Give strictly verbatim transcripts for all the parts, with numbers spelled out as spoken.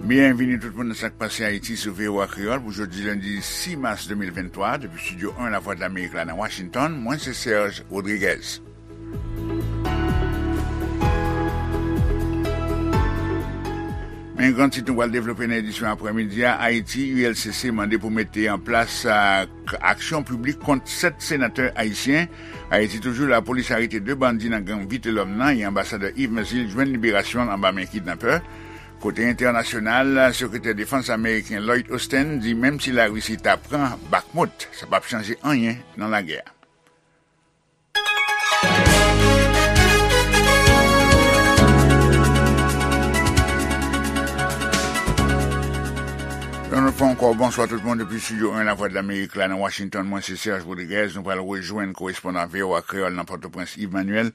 Byenvini tout moun nan Sa k Pase Ayiti sou V O A Kreyòl pou jodi lendi sis mas de mil venntwa, depi Estidyo en Lavwadlamerik la nan Washington, mwen se Serge Rodriguez. Men gran tit nou pral devlope nan edisyon aprèmidi a, Ayiti, U L C C mande pou mete an plas, a, k-, aksyon piblik kont sèt senatè ayisyen. Ayiti toujou, lapolis arete de bandi nan gang Vitelhomme nan, e anbasadè Yves Mersil jwenn liberasyon l anba men kidnapè. Kote entènasyonal, sekretè defans ameriken Lloyd Austin di menm si Larisi ta pran Bakhmut, sa p ap chanje anyen nan lagè a. Yon lòt fwa ankò, bonswa tout moun depi Estidyo en Lavwadlamerik la nan Washington. Mwen se Serge Rodriguez. Nou pral rejwenn korespondan V O A Kreyòl nan Pòtoprens, Yves Manuel.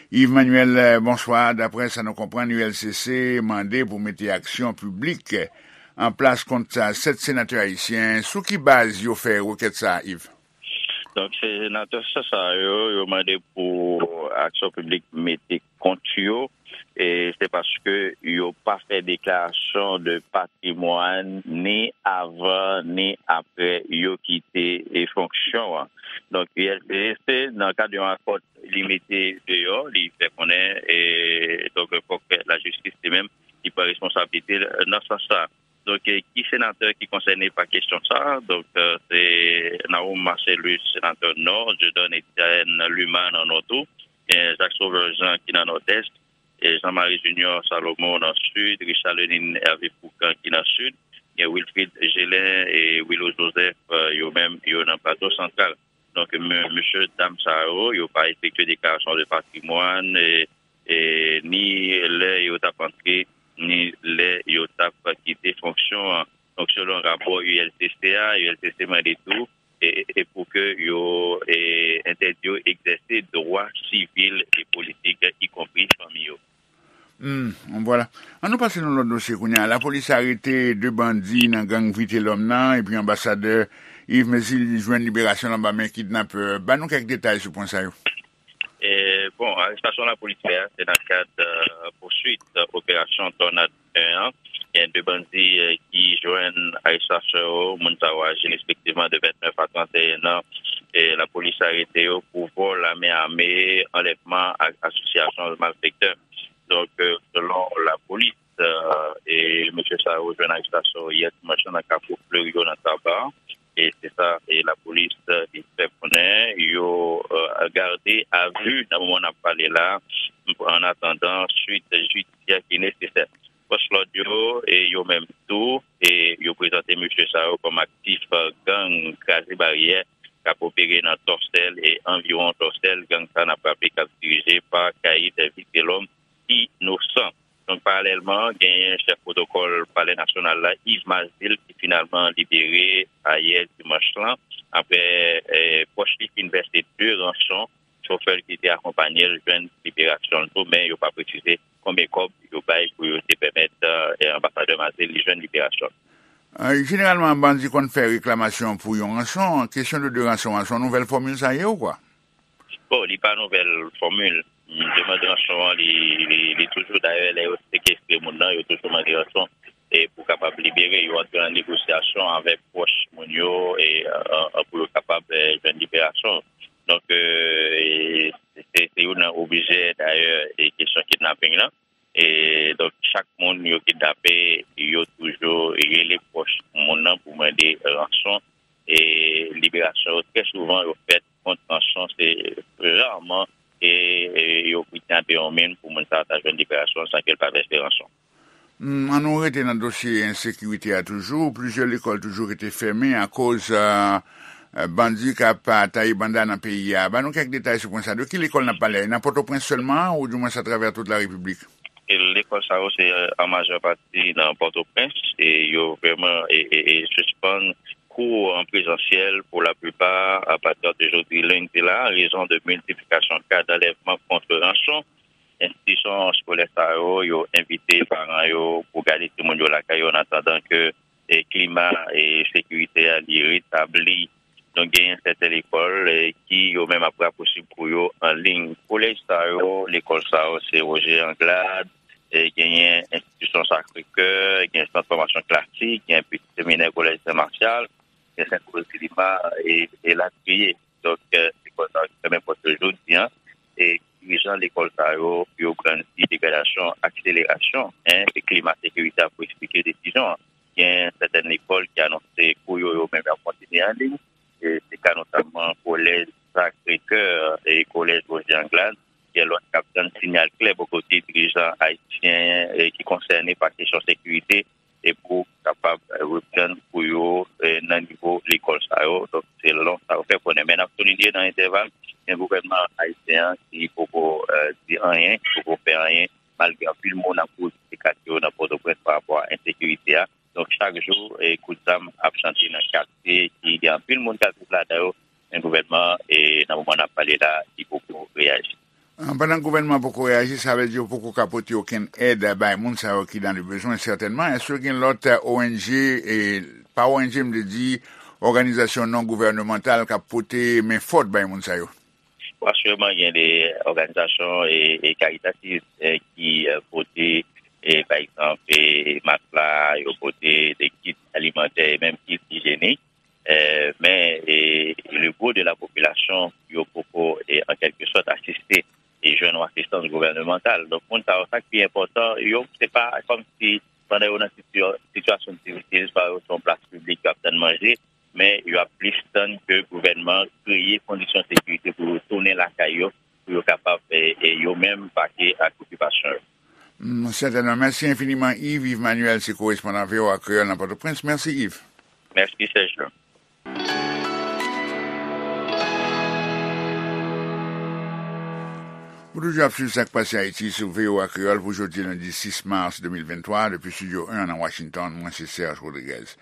Yves Manuel, eh, bonswa. Daprè sa nou konprann, U L C C mande pou mete aksyon piblik an plas kont sa sèt senatè ayisyen. Sou ki baz yo fè rekèt sa a, Yves? Donk, senatè sa, sa yo, yo mande pou aksyon piblik mete kont yo, e se paske yo pa fè deklarasyon de patrimwàn ni avan ni apre yo kite, e, fonksyon an. Donk, U L C C, nan kad yon akò li mete deyò, li fè konnen, e, donk, fòk lajistis li menm, li pran responsablite l nan sans sa. Donk, e, ki senatè ki konsène pa kesyon sa? Donk, e, se Nahoum Marcellus, senatè Nò, Dieudonne Etienne Luma nan Nò tou, gen Jacques Sauveur Jean ki nan Nòdès, e Jean Marie Junior Salomon nan Sid, Richard Lenine Hervé Fourcand ki nan Sid, gen Wilfrid Gelin e Willo Joseph, e, yo menm, yo nan Plato Santral. Donk, me-, mesye dam sa yo, yo pa efektye deklarasyon de patrimwàn, e, e, ni lè yo t ap antre, ni lè yo t ap kite fonksyon an. Donk, selon rapò U L C C a, U L C C mande tou, e, e pou ke yo, e, entèdi yo egzèse dwa sivil e politik, ikonpri fanmi yo. Hmm, vwala. An nou pase nan lòt dosye kounye a. Lapolis arete de bandi nan gang Vitelhomme nan, epi anbasadè Yves Mersil jwenn liberasyon l anba men kidnapè. Ban nou kèk detay sou pwen sa yo. E, bon, arestasyon lapolis fè a, se nan kad, e, pouswit, e, operasyon Tònad en an. Gen de bandi, e, ki jwenn arestasyon yo. Moun sa yo aji respektivman de vennèf a trannteyen an. E lapolis arete yo pou vòl a men ame, anlèvman ak asosyasyon malfektè. Donk, e, selon lapolis, e, e mesye sa yo jwenn arestasyon yè dimanch lan nan Kafou Flerio nan Taba. E se sa, e lapolis, e, li fè konnen yo, e, gade a vi nan moman n ap pale la, an atandan swit jidisyè ki nesesè. Fòs lòd yo, e yo menm tou, e yo prezante mesye sa yo kòm aktif, e, gang Kraze Baryè k ap opere nan Tòsèl e anviwon Tòsèl. Gang sa n ap raple k ap dirije pa Caïd Vitelhomme Innocent. Donk, paralèlman, genyen chèf pwotokòl Palè Nasyonal la, Yves Mersil, ki finalman libere ayè dimanch lan, apre, e, pwòch li fin vèse de ranson, chofè l ki te akonpanye l jwenn liberasyon l tou, men yo pa presize konbyen kòb yo bay pou yo te pèmèt, e, anbasadè Mersil li jwenn liberasyon l. E, jeneralman, bandi konn fè reklamasyon pou yon ranson. Kesyon de, de ranson an, se yon nouvèl fòmil sa ye ou kwa? Bon, li pa nouvèl fòmil. Demann ranson an, li, li, li toujou, dayè, lè yo sekestre moun nan, yo toujou mande ranson, e pou kapab libere, yo antre an negosyasyon avèk pwòch moun yo, e, e, e, pou yo kapab, e, jwenn liberasyon. Donk, e, e, se, se youn nan objè, dayè, e kesyon kidnaping lan. E donk, chak moun yo kidnape, yo toujou rele pwòch moun nan pou mande ranson. E liberasyon yo, trè souvan, yo fèt kont ranson. Se raman, e, e yo kidnape yon moun pou moun sa a ta jwenn liberasyon san ke l pa vèse ranson. Hmm, an nou rete nan dosye ensekirite a toujou. Plizyè lekòl toujou rete fèmen akoz, e, e, bandi k ap, e, taye banda nan peyi a. Ban nou kèk detay sou pwen sa. De ki lekòl n ap pale? Nan Pòtoprens sèlman, oudimwens atravè tout larepiblik? E lekòl sa yo se, e, an majè pati nan Pòtoprens, e yo vrèman, e, e, e sispann kou an prezansyèl pou laplipa apati de jodi lendi la, an rezon de miltiplikasyon ka d'anlèvman kont ranson. Enstitisyon eskolè sa yo, yo envite paran yo pou gade timoun yo lakay yo, an atandan ke, e, klima, e, sekirite a, li retabli. Donk, genyen sèten lekòl, e, ki yo menm ap rapousib pou yo an liy. Kolèj sa yo, lekòl sa yo, se Roger Anglade, e genyen enstitisyon Sacré-Cœur, gen sant fòmasyon klasik, gen pitit seminè kolèj Sen Masyal, gen Sent Roz di Lima, e, e latriye. Donk, e, lekòl sa yo ki fèmen pòt yo jodi a, e dirijan lekòl sa yo, yo grandi degradasyon, akselerasyon, en, e klima sekirite a pou eksplike desizyon an. Gen sètèn lekòl ki anonse kou yo, yo menm y ap kontinye an liy. E se ka notamman kolèj Sacré-Cœur e kolèj Roger Anglade. Gen lòt k ap tann siyal klè bò kote dirijan ayisyen, e, ki konsène pa kesyon sekirite e pou kapab, e, reprann kou yo, e, nan nivo lekòl sa yo. Donk, se lòt sa yo fè konnen. Men n ap soulinye nan entèval, gen gouvènman ayisyen an ki poko, e, di anyen, ki poko fè anyen, malgre anpil moun ap kouri kite katye yo nan Pòtoprens pa rapò a ensekirite a. Donk, chak jou, e, kout zam ap chante nan katye ki gen anpil moun k ap viv ladan yo, men gouvènman, e, nan moman n ap pale la, li poko reyaji. Ah, pandan gouvènman poko reyaji, sa vle di yo poko ka pote okenn èd bay moun sa yo ki dans le besoin, sètènman. Èske gen lòt, e, O N G, e, pa O N G, m vle di, òganizasyon non gouvènemantal k ap pote men fòt bay moun sa yo? Bon, asireman, gen de òganizasyon e, e karitativ, e, ki, e, pote, e, pa egzanp, e, matla, yo pote de kit alimantè e menm kit ijyenik. E, men, e, le gwo de la popilasyon, yo poko, e, an kèlke sòt, asiste e jwenn yon asistans gouvènemantal. Donk, moun sa yo, sa k pi enpòtan, yo, se pa kòmsi pandan yo nan sitiyasyon difisil, swa yo se yon plas piblik, yo ap tann manje, men yo ap plis tann ke gouvènman an kreye kondisyon sekirite pou yo tounen lakay yo, pou yo kapab, e, e, yo menm pake ak okipasyon yo. Mm, sètènman. Mèsi enfiniman, Yves. Yves Manuel, se korespondan V O A Kreyòl nan Pòtoprens. Mèsi, Yves. Mèsi, Serge. Ou toujou ap swiv Sa k Pase Ayiti sou V O A Kreyòl pou jodi lendi sis mas de mil venntwa, depi Estidyo en nan Washington, mwen se Serge Rodriguez.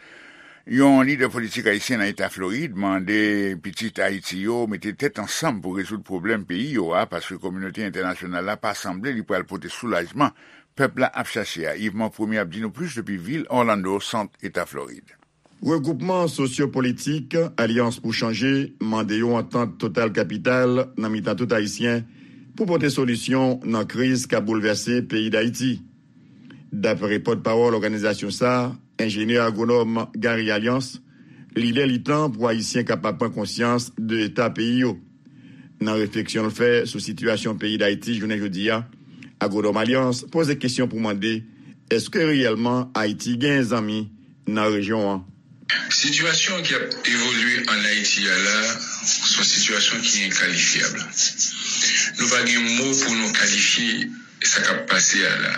Yon lidè politik ayisyen nan eta Florid mande pitit Ayiti yo mete tèt ansanm pou rezoud pwoblèm peyi yo a, paske kominote entènasyonal la pa sanble li pral pote soulajman pèp la ap chache a. Yves Monpremier ap di nou plis depi vil Orlando, sant eta Florid. Regwoupman sosyo-politik Alyans pou Chanje mande yon antant total kapital nan mitan tout Ayisyen pou pote solisyon nan kriz k ap boulvèse peyi Dayiti. Dapre pòtpawòl òganizasyon sa a, enjenyè agwonòm Gary Alliance, li lè li tan pou Ayisyen kapab pran konsyans de eta peyi yo. Nan refleksyon l fè sou sitiyasyon peyi Dayiti jounen jodi a, agwonòm Alliance poze kesyon pou mande, èske reyèlman Ayiti gen zanmi nan rejyon an? Sitiyasyon ki ap evolye ann Ayiti a la, se yon sitiyasyon ki enkalifyab. Nou pa gen mo pou nou kalifye sa k ap pase a la.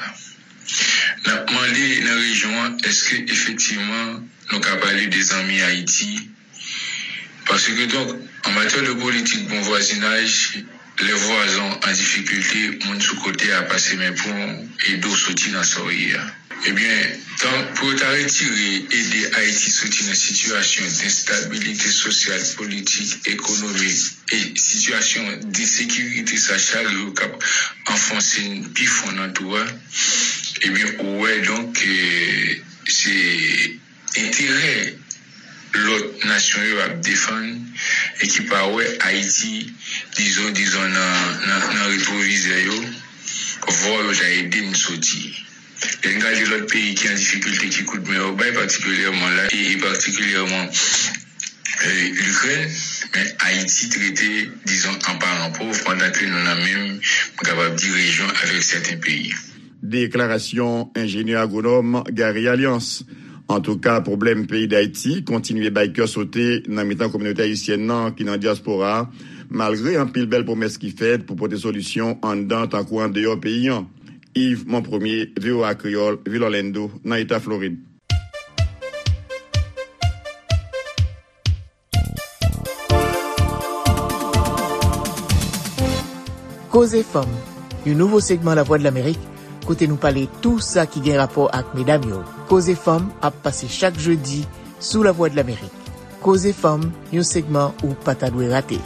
N ap mande nan rejyon an, èske efektivman nou ka pale de zanmi Ayiti? Paske donk, an matyè de politik bon vwazinaj, lè vwazen w an difikilte, moun sou kote a pase men pou w ede w soti nan sa w ye a. Ebyen, tan pou yo ta retire, ede Ayiti soti nan sitiyasyon d enstabilite sosyal, politik, ekonomik e sitiyasyon d ensekirite sa chak jou k ap anfonse n pi fon nan twou a, ebyen, ou wè donk ke se enterè lòt nasyon yo ap defann e ki pa wè Ayiti, dizon, dizon nan, nan, nan retwovizè yo, vwa yo ta ede n soti. Lè n gade lòt peyi ki an difikilte, ki kout men yo bay, patikilyèman la, e, e patikilyèman, e, Likrèn, men Ayiti trete, dizon, an paran pòv, pandan ke nou nan menm, m kapab di, rejyon avèk sèten peyi. Deklarasyon enjenyè agwonòm Gary Alliance. Antouka, pwoblèm peyi Dayiti kontinye bay kè sote nan mitan kominote ayisyèn nan ki nan dyaspora a, malgre anpil bèl pwomès ki fèt pou pote solisyon anndan tankou andeyò peyi an. Yves Monpremier, V O A Kreyòl, vil Orlando, nan eta Florid. Koze Fanm, yon nouvo segman Lavwadlamerik, kote nou pale tou sa ki gen rapò ak medam yo. Koze Fanm ap pase chak jedi sou Lavwadlamerik. Koze Fanm, yon segman ou pa ta dwe rate.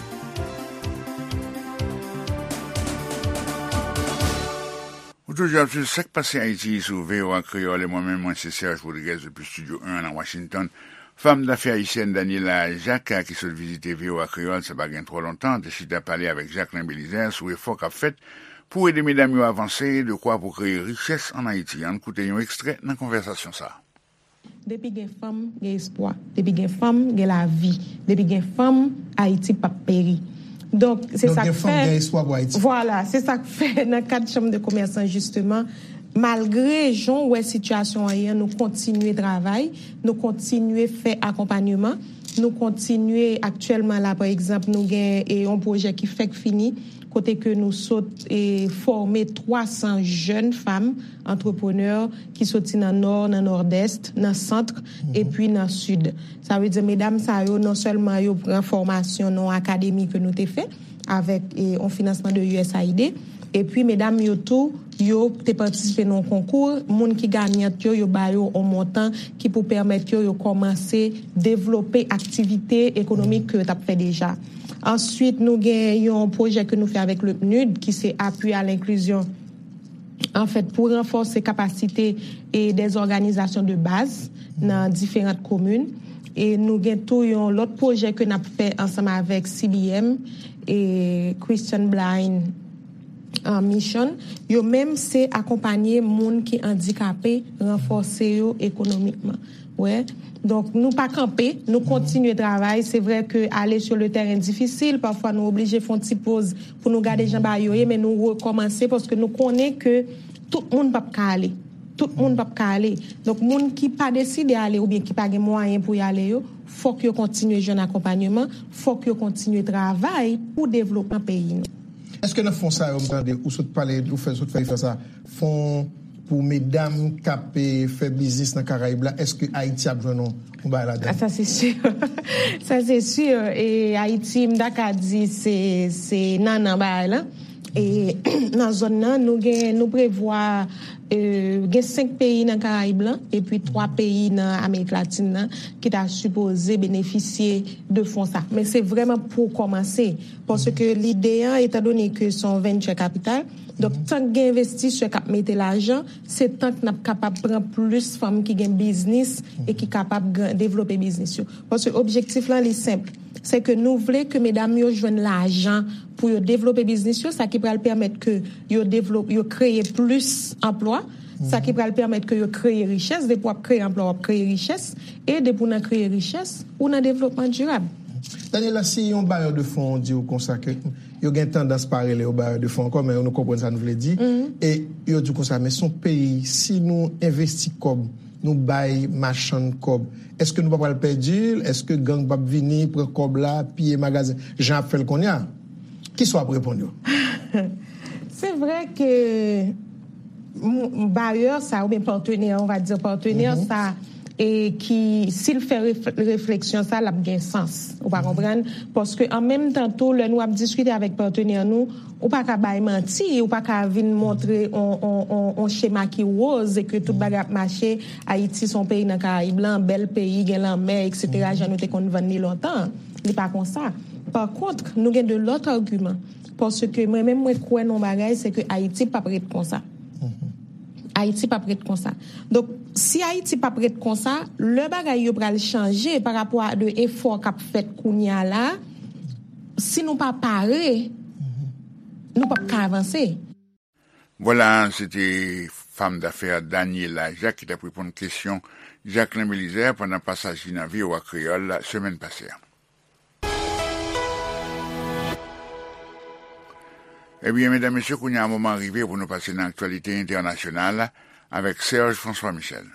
Ou toujou ap swiv Sa k Pase Ayiti sou V O A Kreyòl, e mwen menm, mwen se Serge Rodriguez depi Estidyo en nan Washington. Fanm dafè ayisyèn Daniela Jacques, ki sot vizite V O A Kreyòl sa pa gen twò lontan, te chita pale avèk Jacquelin Belizaire sou efò k ap fèt pou ede medam yo avanse, dekwa pou kreye richès ann Ayiti. Ann koute yon ekstrè nan konvèsasyon sa a. Depi gen fanm, gen espwa. Depi gen fanm, gen lavi. Depi gen fanm, Ayiti p ap peri. Donk, se Donk, sa gen k fanm, fè, gen espwa pou Ayiti. Vwala, se sa k fè nan kad Chanm de Komès lan, jisteman, malgre jan w wè sitiyasyon an ye an, nou kontinye travay, nou kontinye fè akonpanyeman, nou kontinye, aktyèlman la, pa egzanp, nou gen, e, yon pwojè ki fèk fini, kote ke nou sot, e, fòme twa san jèn fanm antreprenè ki soti nan Nò, nan Nòdès, nan Sant, epi nan Sid. Sa vle di, medam sa yo, non sèlman yo pran fòmasyon nan akademi ke nou te fè avèk, e, yon finansman de U S A I D, epi medam yo tou, yo te patisipe nan yon konkou, moun ki ganyant yo, yo ba yo yon montan ki pou pèmèt yo, yo kòmanse devlope aktivite ekonomik ke yo t ap fè deja. Answit, nou gen yon pwojè ke nou fè avèk le PNUD, ki se Appui à l'inclusion, anfèt, pou ranfòse kapasite e dè òganizasyon de baz nan diferan komin. E nou gen tou yon lòt pwojè ke n ap fè ansanm avèk C B M e Christian Blind, uh, Mission. Yo menm se akonpanye moun ki andikape, ranfòse yo ekonomikman. Wè. Donk, nou pa kanpe, nou kontinye travay. Se vre ke ale sur le terrain difisil, pafwa nou oblije fè yon ti poz pou nou gade jan bagay yo ye, men nou rekòmanse paske nou konnen ke tout moun p ap ka ale. Tout moun p ap ka ale. Donk, moun ki pa deside ale oubyen ki pa gen mwayen pou y ale yo, fòk yo kontinye jwenn akonpanyeman, fòk yo kontinye travay pou devlopman peyi nou. Èske nan fon sa yo, m tande, ou sot pale, ou fè, sot fè referans a fon pou medam k ap, eh, fè biznis nan Karayib la, èske Ayiti ap jwenn yon, yon bagay ladan? Ah, sa se si. Sa se si. E Ayiti, m ta ka di, se, se nannan bagay la. E nan zòn nan, nou gen, nou prevwa, eh, gen senk peyi nan Karayib lan, epi twa peyi nan Amerik Latin nan, ki ta sipoze benefisye de fon sa. Men se vrèman pou kòmanse, paske lide an, etandone ke se yon venture capital, donk, tan k gen envestisè k ap mete lajan, se tan k n ap kapab pran plis fanm ki gen biznis e ki kapab gran-, devlope biznis yo. Paske objektif lan, li senp. Se ke nou vle ke medam yo jwenn lajan pou yo devlope biznis yo, sa ki pral pèmèt ke yo devlop-, yo kreye plis anplwa, sa ki pral pèmèt ke yo kreye richès. Depi w ap kreye anplwa, w ap kreye richès. E depi w nan kreye richès, ou nan devlopman dirab. Daniela, si yon bayè de fon di w konsa ke yo gen tandans pa rele yo bayè de fon ankò, men nou konprann sa nou vle di. E yo di w konsa, men se yon peyi, si nou envesti kòb, nou bay machann kòb, èske nou pa pral pèdi l? Èske gang p ap vini, pran kòb la, piye magazen, jan y ap fè l kounye a? Kisa w ap reponn yo? Se vre ke m-, bayè sa, oubyen patenè, on va dire patenè sa, e ki, si l fè ref-, refleksyon sa, l ap gen sans. Ou pa konprann? Paske an menm tan tou, lè nou ap diskite avèk patenè nou, ou pa ka bay manti, ou pa ka vin montre on, on, on, on chema ki woz e ke tout bagay ap mache. Ayiti se yon peyi nan Karayib lan, bèl peyi, gen lanmè, et cetera, jan nou te konn vann li lontan. Li pa konsa. Pa kont, nou gen de lòt agiman. Paske mwen menm, mwen kwè nan yon bagay, se ke Ayiti p ap ret konsa. Ayiti p ap ret konsa. Donk, si Ayiti p ap ret konsa, lè bagay yo pral chanje pa rapò a de efò k ap fèt kounye a la, si nou pa pare, nou p ap ka avanse. Vwala, se te fanm dafè Daniela Jacques ki t ap reponn kesyon Jacquelin Belizaire pandan pasaj li nan V O A Kreyòl semèn pase a. Ebyen, medam, mesye, kounye a moman an rive pou nou pase nan aktyalite entènasyonal avèk Serge François Michel.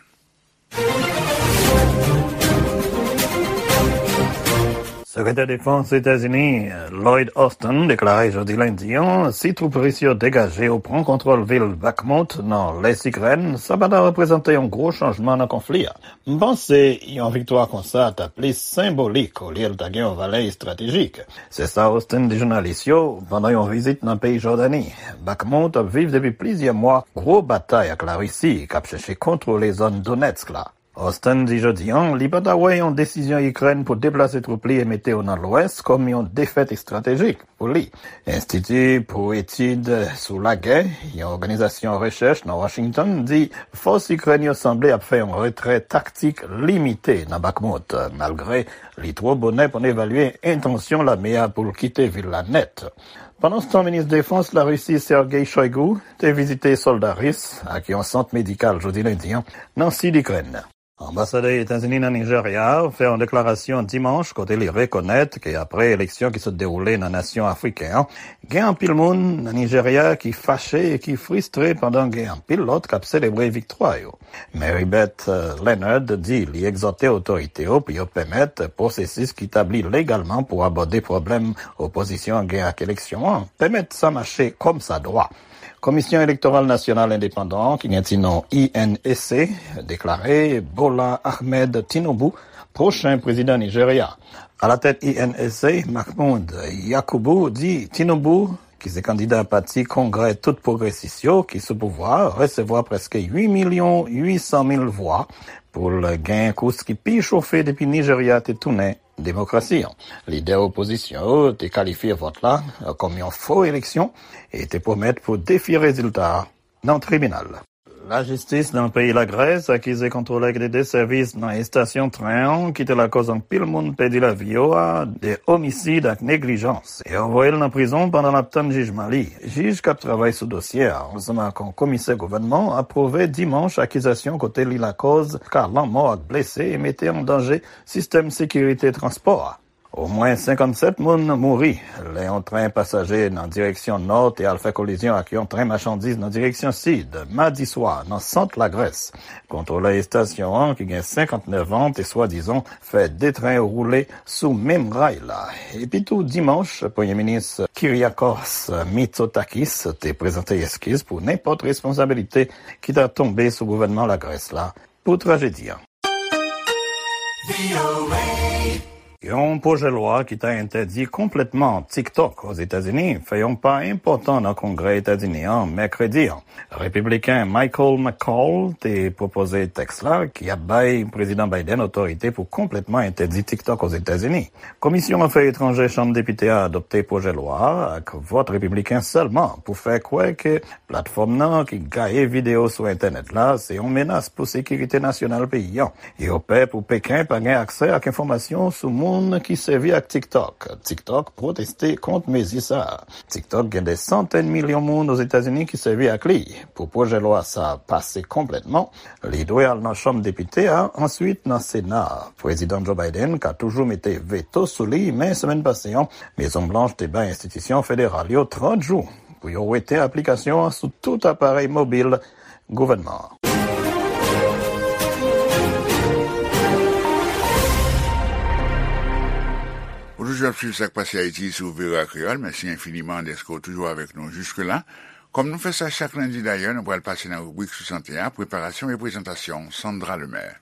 Sekretè Defans Etazini, Lloyd Austin, deklare jodi lendi an, si twoup ris yo degaje yo pran kontwòl vil Bakhmut nan lès Ikrèn, sa pa ta reprezante yon gwo chanjman nan konfli a. M panse yon viktwa konsa ta plis senbolik olye l ta gen yon valè estratejik. Se sa Austin di jounalis yo pandan yon vizit nan peyi Jòdani. Bakhmut ap viv depi plizyè mwa gwo batay ak Larisi k ap chèche kontwole zòn Donetsk la. Austin di jodi a, li pa ta wè yon desizyon Ikrèn pou deplase twoup li e mete yo nan Lwès kòm yon defèt estratejik pou li. Enstiti pou Etid sou Lagè, yon òganizasyon rechèch nan Washington, di fòs Ikrèn yo sanble ap fè yon retrè taktik limite nan Bakhmut, malgre li twò bonè pou n evalye entansyon lame a pou l kite vil la nèt. Pandanstan, minis defans Larisi Sergei Shoigu te vizite sòlda ris ak yon sant medikal jodi lendi an nan sid Ikrèn. Anbasadè Etazini nan Nijerya fè yon deklarasyon dimanch kote li rekonèt ke apre eleksyon ki sot dewoule nan nasyon afriken an, gen anpil moun nan Nijerya ki fache e ki fristre pandan gen anpil lòt k ap selebre viktwa yo. Maribeth, eh, Leonard di li egzòte otorite yo pou yo pèmèt pwosesis ki tabli legalman pou abòde pwoblèm opozisyon an gen ak eleksyon an, pèmèt sa mache kòmsadwa. Komisyon Elektoral Nasyonal Endepandan an, ki gen ti non I N E C, deklare Bola Ahmed Tinubu pwochen prezidan Nijerya. Alatèt I N E C, Mahmoud Yakubu di Tinubu, ki se kandida pati Kongrè Tout Pwogresis yo, ki sou pouvwa a, resevwa prèske uit milyon uit san mil vwa pou l gen kous ki pi chofe depi Nijerya te tounen demokrasi an. Lidè opozisyon yo te kalifye vòt la kòm yon fo eleksyon e te pwomèt pou defye rezilta a nan tribinal. Lajistis nan peyi Lagrès akize kontwolè ki te de sèvis nan estasyon tren an ki te lakòz anpil moun pèdi lavi yo a de omisid ak neglijans. Yo voye l nan prizon pandan l ap tann jijman li. Jij k ap travay sou dosye a, ansanm ak yon komisè gouvènman, apwouve dimanch akizasyon kote li lakòz ka lanmò ak blese e mete an danje sistèm sekirite transpò a. Omwen senkannsèt moun mouri lè yon tren pasaje nan direksyon nò te al fè kolizyon ak yon tren machandiz nan direksyon sid, madi swa, nan sant Lagrès. Kontwolè estasyon an, ki gen senkantnèf an, te swadizan fè de tren yo woule sou menm ray la. Epitou, dimanch, Premye Minis Kyriakos Mitsotakis te prezante eskiz pou nenpòt responsabilite ki ta tonbe sou gouvènman Lagrès la pou trajedi an. Yon pwojè lwa ki ta entèdi konplètman TikTok Ozetazini fè yon pa enpòtan nan Kongrè Etazini an mèkredi an. Repibliken Michael McCaul te pwopoze tèks la, ki ap bay Prezidan Biden otorite pou konplètman entèdi TikTok Ozetazini. Komisyon Afè Etranjè Chanm Depite a adopte pwojè lwa a ak vòt repibliken sèlman pou fè kwè ke platfòm nan ki gaye videyo sou entènèt la se yon menas pou sekirite nasyonal peyi an. Yo pè pou Peken pa gen aksè ak enfòmasyon sou moun ki sèvi ak TikTok. TikTok pwoteste kont mezi sa a. TikTok gen de santèn milyon moun Ozetazini ki sèvi ak li. Pou pwojè lwa sa a pase konplètman, li dwe al nan Chanm Depite a, answit nan Sena a. Prezidan Joe Biden ka toujou mete veto sou li, men semèn pase an, Mezon Blanch te bay enstitisyon federal yo trant jou pou yo wete aplikasyon an sou tout aparèy mobil gouvènman an. Ou toujou ap swiv Sa k Pase Ayiti sou V O A Kreyòl. Mèsi enfiniman dèske w toujou avèk nou jiske la. Kòm nou fè sa chak lendi dayè, nou pral pase nan ribrik sou sante a, preparasyon e prezantasyon Sandra Lemaire.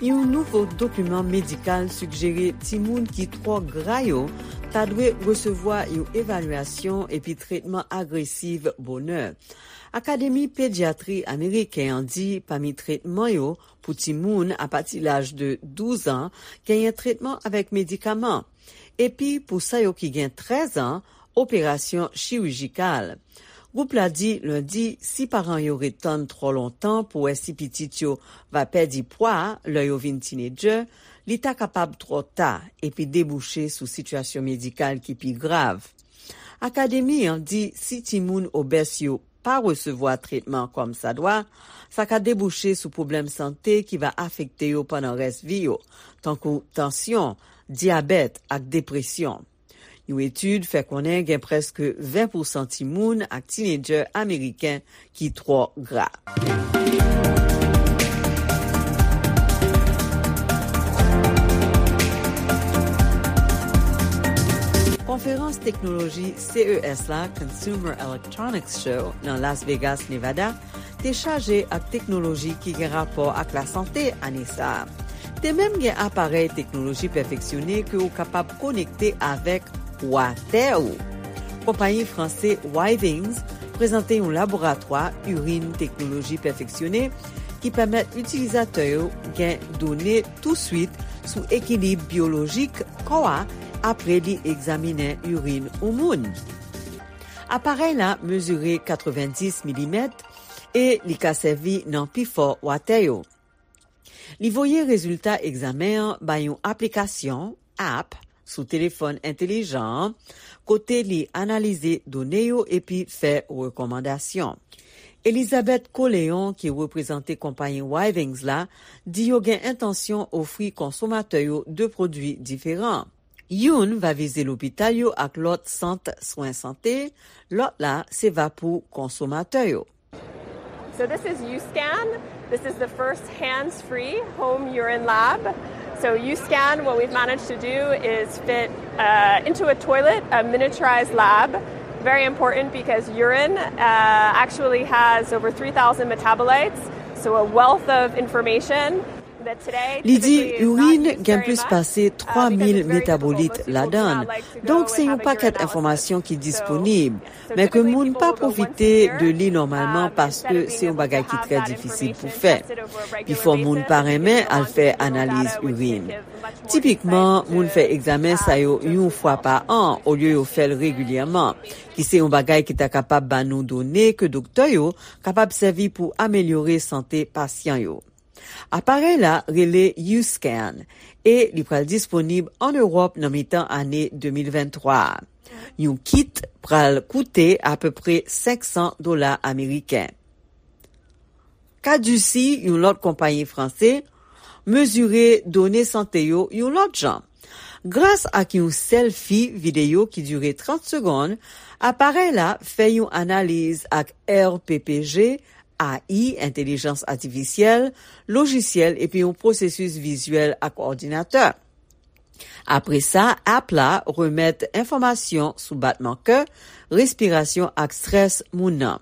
Yon nouvo dokiman medikal sigjere timoun ki twò gra yo ta dwe resevwa yon evalyasyon epi tretman agresiv bonè. Akademi Pedyatri Ameriken an di pami tretman yo pou timoun apati laj de douz an, genyen tretman avèk medikaman. Epi pou sa yo ki gen trèz an, operasyon chirijikal. Gwoup la di lendi, si paran yo ret tann twò lontan pou wè si pitit yo va pèdi pwa lè yo vin tinedjè, li ta kapab twò ta epi debouche sou sitiyasyon medikal ki pi grav. Akademi an di si timoun obès yo pa resevwa tretman kòmsadwa, sa ka debouche sou pwoblèm sante ki va afekte yo pandan rès vi yo, tankou tansyon, dyabèt ak depresyon. Yon etid fè konnen gen prèske ven pousan timoun ak tinedjè ameriken ki twò gra. Konferans teknoloji C E S la, Consumer Electronics Show, nan Las Vegas, Nevada, te chaje ak teknoloji ki gen rapò ak lasante ane sa a. Te menm gen aparèy teknoloji pèfeksyone ke w kapab konekte avèk watè ou. Konpayi franse Withings prezante yon laboratwa irin teknoloji pèfeksyone ki pèmèt itilizatè yo gen done touswit sou ekilib byolojik kò a apre li egzaminen irin yon moun. Aparèy la mezire katrevenndis milimèt e li ka sèvi nan pifò watè yo. Li voye rezilta egzamen an bay yon aplikasyon, app, sou telefòn entelijan an, kote li analize done yo epi fè rekòmandasyon. Elizabeth Coléon, ki reprezante konpayi Withings la, di yo gen entansyon ofri konsomatè yo de pwodui diferan. Youn va vize lopital yo ak lòt sant swen sante, lòt la se va pou konsomatè yo. So this is UScan. This is the first hands-free home urine lab. So UScan, what we've managed to do is fit uh, into a toilet a miniaturized lab. Very important because urine uh, actually has over three thousand metabolites, so a wealth of information. Li di irin gen plis pase twa mil metabolit ladan l, donk se yon pakèt enfòmasyon ki disponib, men ke moun pa pwofite de li nòmalman paske se yon bagay ki trè difisil pou fè. Pifò moun pa renmen al fè analiz irin. Tipikman, moun fè egzamen sa yo yon fwa pa an olye yo fè l regilyèman, ki se yon bagay ki ta kapab ba nou done ke doktè yo kapab sèvi pou amelyore sante pasyan yo. Aparèy la rele UScan e li pral disponib ann Ewòp nan mitan ane de mil venntwa a. Yon kit pral koute apepre senk san dola ameriken. Caduci, yon lòt konpayi franse, mezire done sante yo yon lòt jan. Gras ak yon sèlfi videyo ki dire trant segonn, aparèy la fè yon analiz ak R P P G, A I, entèlijans atifisyèl, lojisyèl epi yon pwosesis vizyèl ak òdinatè. Apre sa, app la remèt enfòmasyon sou batman kè, respirasyon ak strès moun nan.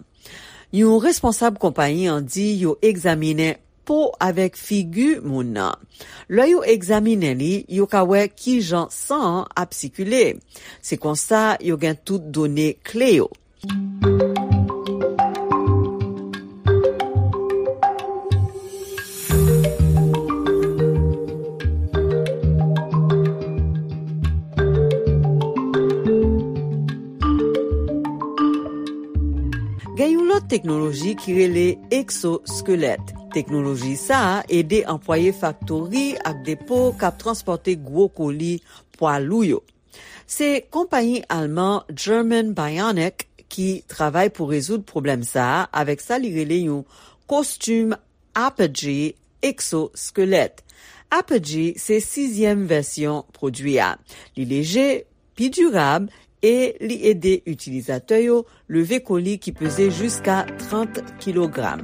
Yon responsab konpayi an di yo egzaminen po avèk figi moun nan. Lè yo egzaminen li, yo ka wè kijan san an ap sikile. Se konsa yo gen tout done kle yo. Gen yon lòt teknoloji ki rele eksoskelèt. Teknoloji sa a ede anplwaye faktori ak depo k ap transpòte gwo koli pwa lou yo. Se konpayi alman German Bionic ki travay pou rezoud pwoblèm sa a avèk sa li rele yon kostim Apogee eksoskelèt. Apogee se sizyèm vèsyon pwodui a. Li leje, pi dirab e li ede itilizatè yo leve koli ki peze jiska trant kilogram.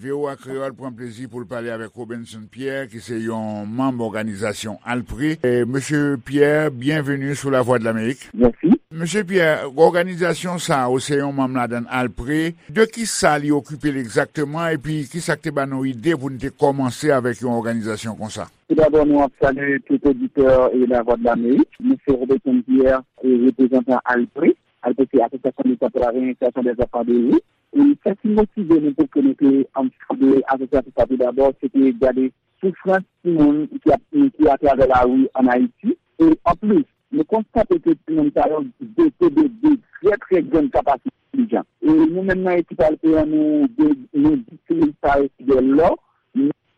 V O A Kreyòl pran plezi pou l pale avèk Robinson Pierre, ki se yon manm òganizasyon Alpre. E, Mesye Pierre, byenveni sou Lavwadlamerik. Mèsi. Mesye Pierre, òganizasyon sa a, ou se yon manm ladan l, Alpre. De ki sa li okipe l egzakteman, epi ki sa k te ba nou ide pou n te kòmanse avèk yon òganizasyon konsa? Tou dabò, nou ap salye tout oditè e Lavwadlamerik. Mwen se Robertson Pierre, e reprezantan Alpre. Alpre se Association de Travailleurs et Installation des Enfants de Rue. E sa ki motive nou pou ke nou te, ann, fonde asosyasyon sa tou dabò, se te gade soufrans timoun ki ap, ki atravè lari ann Ayiti. E anplis, nou konstate ke timoun sa yo dote de, de trè, trè grann kapasite entèlijan. E nou menm nan ekip Alpre an, nou, nou distribye sa yo de lò,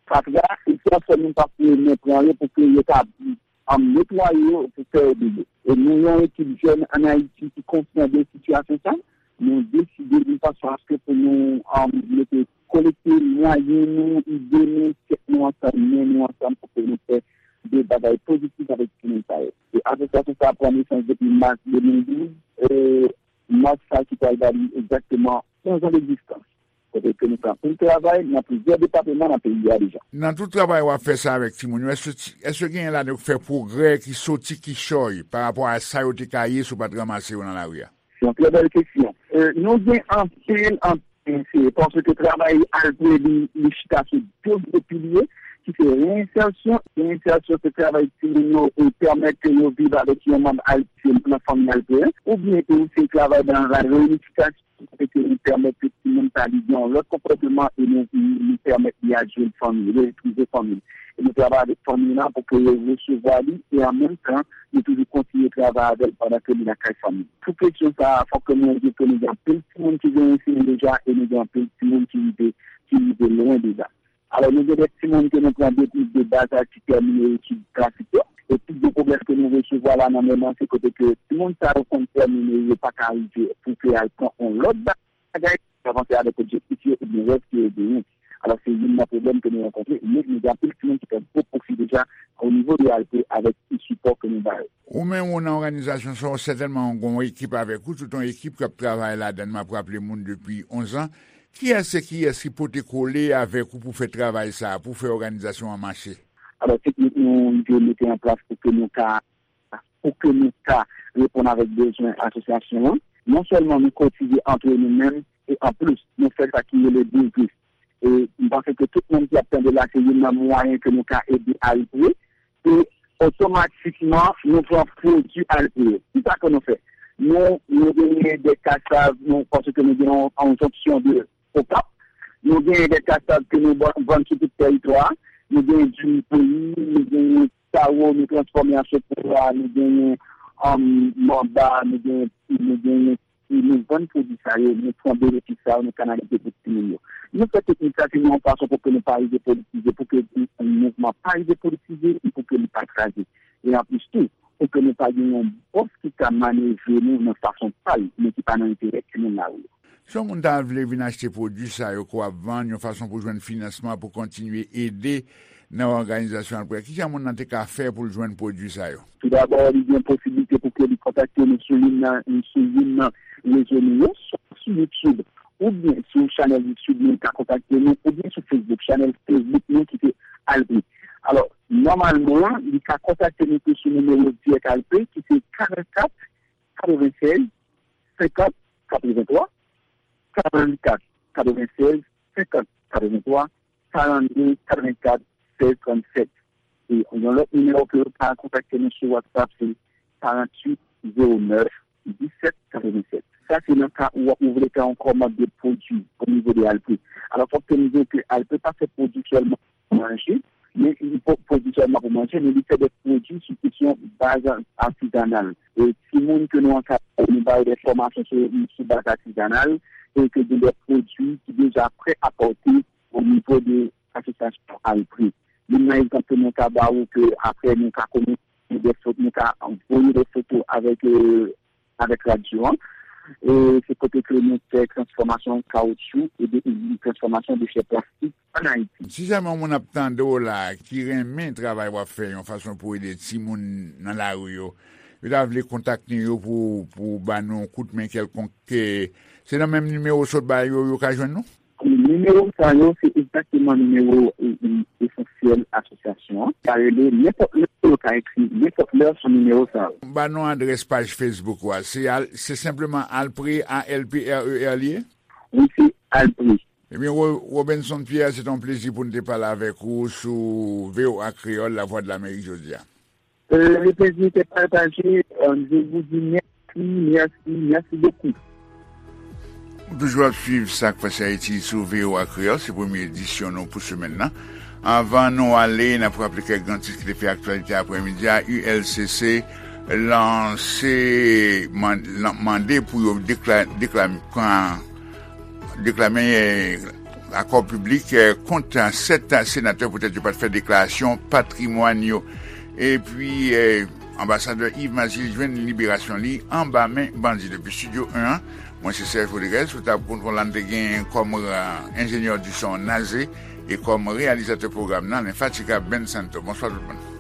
fatra, e transfè moun pa pou yo men pran yo pou ke yo ka, um, netwaye yo, pou fè yo bebe. E nou yon ekip jèn ann Ayiti ki konsyan de sitiyasyon sa, nou deside yon fason aske pou nou, um, mete, kolekte mwayen nou, ide nou, tèt nou ansanm, men nou ansanm pou ke nou fè de bagay pozitif avèk timoun sa yo. E asosyasyon sa a pran nesans depi mas de mil douz, e mas sa ki pral ba li egzakteman onz an degzistans. Kote ke nou fè anpil travay nan plizyè depatman nan peyi a deja. Nan tout travay w ap fè sa avèk timoun yo, èske ti, èske genyen ladan yo k fè pwogrè ki soti kichòy pa rapò a sa yo te ka ye si w pa t ranmase yo nan lari a? Se yon trè bèl kesyon. E, nou gen anpil, anpil, se paske travay Alpre li, li chita sou de gwo pilye, ki se reyensèsyon. Reyensèsyon se travay timoun yo e pèmèt ke yo viv avèk yon manm Alpre nan fanmi Alpre, oubyen ke se travay nan la reyinifikasyon, kote ke nou pèmèt ke timoun sa li gen yon lòt konpòteman e nou, nou pèmèt li al jwenn fanmi, li retwouve fanmi. E nou travay avèk fanmi lan pou ke yo resevwa li e an menm tan, nou toujou kontinye travay avè l pandan ke li lakay fanmi. Pou kesyon sa a, fòk ke nou di ke nou gen anpil timoun ki gen enseyan deja e nou gen anpil timoun ki rive, ki rive lwen deja. Alò, nou gen de timoun ke nou pran depi de baz aj ki tèmine etid klasik yo. E pi gwo pwoblèm ke nou resevwa la nan men mwen, se kote ke timoun sa yo konn tèmine, yo pa ka rive pou ke al pran yon lòt bagay, avanse avèk objektif yo oubyen rèv ke yo genyen. Alò, se youn nan pwoblèm ke nou rankontre, men nou gen anpil timoun ki fè gwo pwofi deja o nivo de Alpre avèk ti sipò ke nou ba yo. Ou menm, ou nan òganizasyon sa, ou sètènman gen yon ekip avèk ou, tout yon ekip k ap travay ladan l, m ap raple moun depi onz an. Kiyès e kiyès ki pote kole avèk ou pou fè travay sa a, pou fè òganizasyon an mache? Alò, teknik nou, nou mete an plas pou ke nou ka, pou ke nou ka reponn avèk bezwen asosyasyon an. Non sèlman nou kotize antre nou menm, e anplis, nou fè sa ki rele biznis. E m panse ke tout moun ki ap tande la, se youn nan mwayen ke nou ka ede Alpre. E otomatikman, nou pran pwodui Alpre yo. Kisa ke nou fè? Nou, nou genyen de kasav, nou, paske nou gen yon, yon jonksyon de Okap. Nou genyen de kasav ke nou ban-, vann sou tout tèritwa a. Nou genyen diri peyi, nou genyen kawo, nou transfòme an sopwa, nou genyen, um, manba, nou genyen, nou genyen, e nou vann pwodui sa yo, nou pran benefis sa yo, nou kanalize pou timoun yo. Nou fè teknik sa, se yon fason pou ke nou pa rive politize, pou ke mouvman pa rive politize, e pou ke li pa kraze. E anplis tou, pou ke nou pa gen yon bòs ki ka manevre nou nan fason pa l, men ki pa nan enterè timoun lari yo. Si yon moun ta vle vin achte pwodui sa yo ke w ap vann, yon fason pou jwenn finansman pou kontinye ede nan òganizasyon Alpre, kijan moun nan te ka fè pou l jwenn pwodui sa yo? Toudabò, li gen posiblite pou ke li kontakte nou sou youn nan, sou youn nan rezo nou yo, swa sou YouTube, oubyen sou chanèl YouTube nou, li ka kontakte nou, oubyen sou Facebook, chanèl Facebook nou ki se Alpre. Alò, nòmalman, li ka kontakte nou tou sou nimewo dirèk Alpre, ki se karannkat katrevennsèz senkant katrevenntwa, karannkat katrevennsèz senkant katrevenntwa, karannde katrevenkat sèz trannsèt. E yon lòt nimewo ke yo ka kontakte nou sou WhatsApp, se karanntuit zewo nèf disèt katrevennsèt. Sa se nan ka ou, ou vle fè yon kòmand de pwodui o nivo de Alpre. Alò, fòk ke nou di ke Alpre pa fè pwodui sèlman manje, men li po-, pwodui sèlman pou manje, men li fè de pwodui sou kesyon baz atizanal. E timoun ke nou ankadre, nou ba yo de fòmasyon sou, sou baz atizanal, e ke gen de pwodui ki deja prè a pòte o nivo de asosyasyon Alpre. Youn nan egzanp ke nou ka ba ou ke apre nou ka konnen de fot-, nou ka voye de foto avèk, e, avèk radyo an. E se kote ke nou fè transfòmasyon kawotchou e de, transfòmasyon dechè plastik an Ayiti. Si janmen yon moun ap tande w la, ki renmen travay w ap fè, yon fason pou ede timoun nan lari yo, yo ta vle kontakte yo pou, pou ba nou yon kout men kèlkonk, e, se nan menm nimewo w sot ba yo, yo ka jwenn nou? Nimewo sa yo, se egzakteman nimewo, e, e, esansyèl asosyasyon an. Ka rele nenpòt lè, yo ka ekri nenpòt lè sou nimewo sa yo. Ba nou adrès paj Facebook ou a. Se al-, se senpleman Alpre, A L P R E R li ye? Wi, se Alpre. Ebyen, Ro-, Robenson Pierre, se te yon plezi pou n te pale avèk ou sou V O A Kreyòl, Lavwadlamerik jodi a. Euh, le plaisir était partagé. Euh, je vous dis merci, merci, merci beaucoup. Ou toujou ap swiv Sa k Pase Ayiti sou V O A Kreyòl, se premye edisyon nou pou semèn nan. Anvan nou ale, n ap raple kèk gran tit ki te fè aktyalite aprèmidi a. U L C C lanse, man-, lan-, mande pou yo dekla-, dekla-, pran, deklame, eh, akò piblik kont sèt senatè poutèt yo pa t fè deklarasyon patrimwàn yo. Epi anbasadè Yves Mazil jwenn liberasyon li anba men bandi. Depi Studio en an, mwen se Serge Rodriguez, sou tab kontwòl la n te gen kòm enjenyè di son Naze e kòm reyalizatè pwogram nan lenfatigab Ben Santo. Bonswa tout moun.